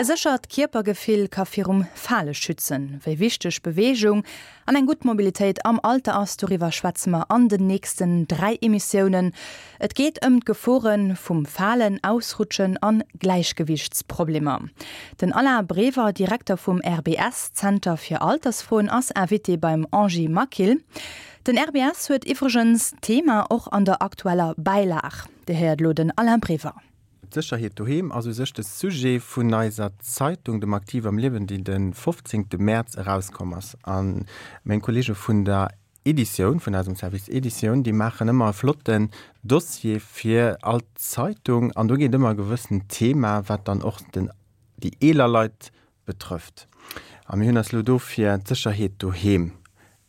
E séchert Kierpergefill ka virum Fale schützen. Wéi wichteg Beweegung an eng gutt Mobilitéit am Alter ass, doriwwer schwätze mer an den nächsten 3 Emissiounen. Et geet ëm d'Gefore vum Falen, Ausrutschen an Gläichgewiichtsproblemer. Den Alain Brever, Direkter vum RBS Zenter fir Altersfroen, ass Invité beim Angie Maquil. Den RBS huet iwwregens d'Thema och an der aktueller Bäilag. Dir héiert elo den Alain Brever. D'Sécherheet doheem ass u sech de Sujet vun eiser Zeitung, dem Aktiv am Liewen, déi de 15 Mäerz erauskomm ass. A meng Kollege vun der Editioun, vun eisem Service Editioun, déi maachen ëmmer e flotten Dossier fir all Zeitung. An do geet ëmmer e gewëssent Thema, wat dann och den, déi eeler Leit betrëfft. A mir hunn eis elo do fir d'Sécherheet doheem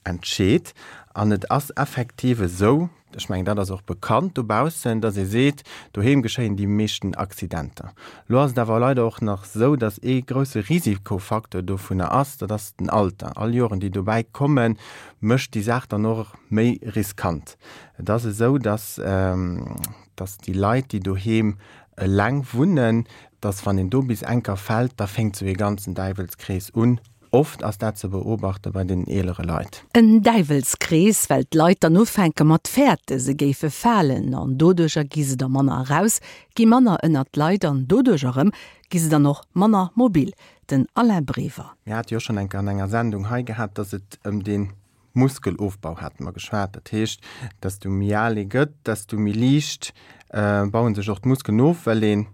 entscheet. An et ass effektiv esou, ech mengen, dat ass och bekannt dobaussen, dass ee seet, doheem geschéien déi meeschten Accidenter. Elo ass et awer leider och nach esou, dass ee grouse Risikofacteur dovunner ass, dat ass den Alter. All Joren, déi dobäi kommen, mécht déi Saach dann och méi riskant. Et ass esou, dass, dass déi Leit, déi doheem eleng wunnen, dass wann een do bis enker fält, da fénkt esou ee ganzen Däiwelskrees un. Oft ass dat ze beobachte bei den eelere Leit. En Däiwelskrees, well d'Leit dann ufänke mat fäerte se géife falen an doduercher gi se da manner eraus, gi manner ënnert d'Leit an doduercher erëm gi se dann och manner mobil. Den Alain Brever. Mir hate jo schonn eng Kéier an enger Sendung hei gehat, dass et ëm dee Muskelofbau hate mer geschwat. Dat heescht, desto méi al ee gëtt, desto méi liicht baue sech och d'Muskelen of, well een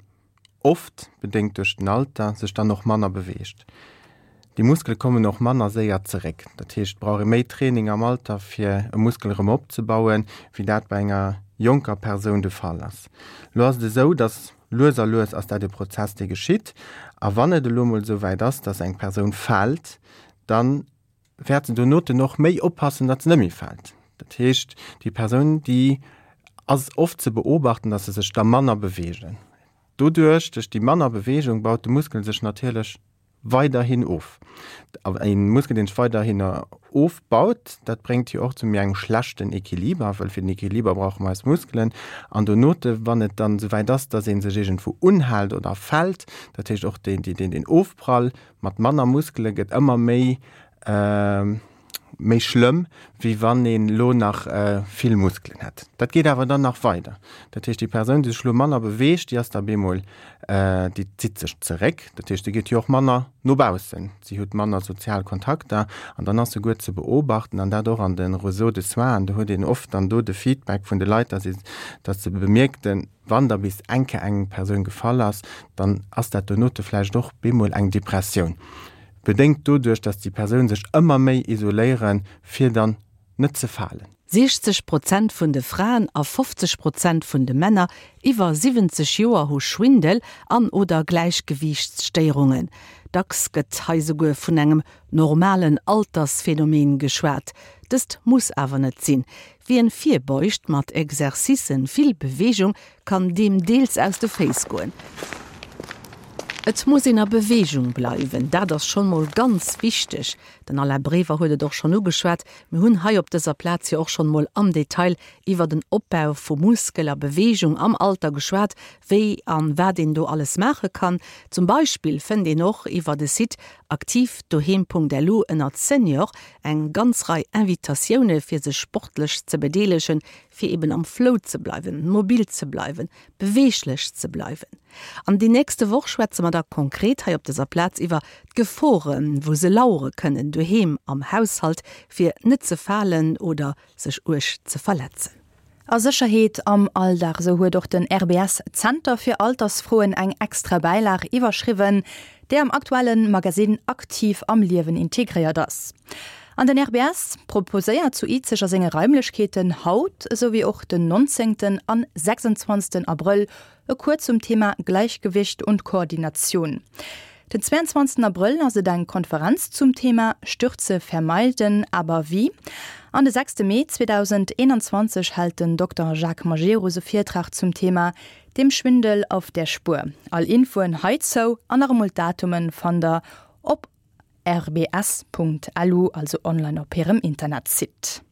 oft bedéngt duerch den Alter, sech dann och manner beweegt. Déi Muskele kommen och manner séier zeréck. Dat heescht, et brauch ee méi Training am Alter, fir e Muskel erëm opzebauen, wéi dat bei enger jonker Persoun de Fall ass. Elo ass et esou, datt lues a lues ass dat e Prozess, dee geschitt. A wann et elo emol esou wäit ass, datt eng Persoun fält, dann wäert se donoten och méi oppassen, datt se net méi fält. Dat heescht, déi Persoun, déi ass oft ze beobachten, datt se sech da manner beweegen. Doduerch, duerch déi manner Beweegung, baut de Muskel sech natierlech weiderhin of. A e Muskel, deen sech weiderhin ofbaut, dat bréngt jo och zu méi engem schlechten Equiliber, well fir den Equiliber brauche mer eis Muskelen. An donote, wann et dann esouwäit ass, datt ee sech iergendwou unhält oder fält, dat heescht och deen Ofprall, Mat manner Muskele gëtt ëmmer méi méi schlëmm, wéi wann een elo nach vill Muskelen hätt. Dat geet awer dann nach weider. Dat heescht, déi Persoun, déi sech elo manner beweegt, déi ass da bemol, déi zitt sech zeréck. Dat heescht, déi geet jo och manner no baussen, si huet manner sozial Kontakter an dann ass souguer ze beobachten, an dat och an de Réseaux de soins, an do huet een oft dann do de Feedback vun de Leit, dass ee, dass se bemierkten, Wann da bis eng Kéier eng Persoun gefall ass, dann ass dat donote vläicht och bemol eng Depressioun, bedéngt doduerch, dass déi Persoun sech ëmmer méi isoléieren, fir dann net ze falen. 60 Prozent vun de Fraen a 50 Prozent vun de Männer iwwer 70 Joer hu Schwindel an oder Gläichgewiichtsstéierungen. Dacks gëtt hei souguer vun engem normalen Altersphenomen geschwat. Dëst muss awer net sinn. Wien virbeugt mat Exercicen, vill Beweegung, kann deem deels aus de Féiss goen. Et muss een a Beweegung bleiwen, dat ass schonn mol ganz wichteg. Den Alain Brever huet et och schonn ugeschwat, mir hunn hei op dëser Plaz jo och schonn mol am Detail iwwer den Opbau vu Muskel a Beweegung am Alter geschwat, wéi an wat een do alles maache kann. Zum Beispill fënnt een och iwwer de Site aktivdoheem.lu ënnert Senior Eng ganz Rei Invitatioune fir sech sportlech ze bedeelegen, fir eben am Flow ze bleiwen, mobil ze bleiwen, beweeglech ze bleiwen. An déi nächste Woch schwätze mer da konkret hei op dëser Plaz iwwer d'Geforen, wou se lauere kënnen, doheem am Haushalt, fir net ze falen oder sech uerg ze verletzen. A Sécherheet am Alldag, esou huet och den RBS Zenter fir Altersfroen eng extra Bäilag iwwerschriwwen, déi am aktuelle Magasinn Aktiv am Liewen integréiert ass. An den RBS proposéiert zu Izeg a senge Raimlechkeeten haut, esou wéi och den 19. an 26. Abrëll E Cours zum Thema Gleichgewicht und Koordination. Den 22 Abrëll ass et eng Konferenz zum Thema Stürze vermeiden, aber wie? An de 6 Mee 2021 hält den Dokter Jacques Majerus e Virtrag zum Thema Dem Schwindel auf der Spur. All Infoen heizou an nach emol d'Datumen fannt der op rbs.lu, also online op hirem Internetsite.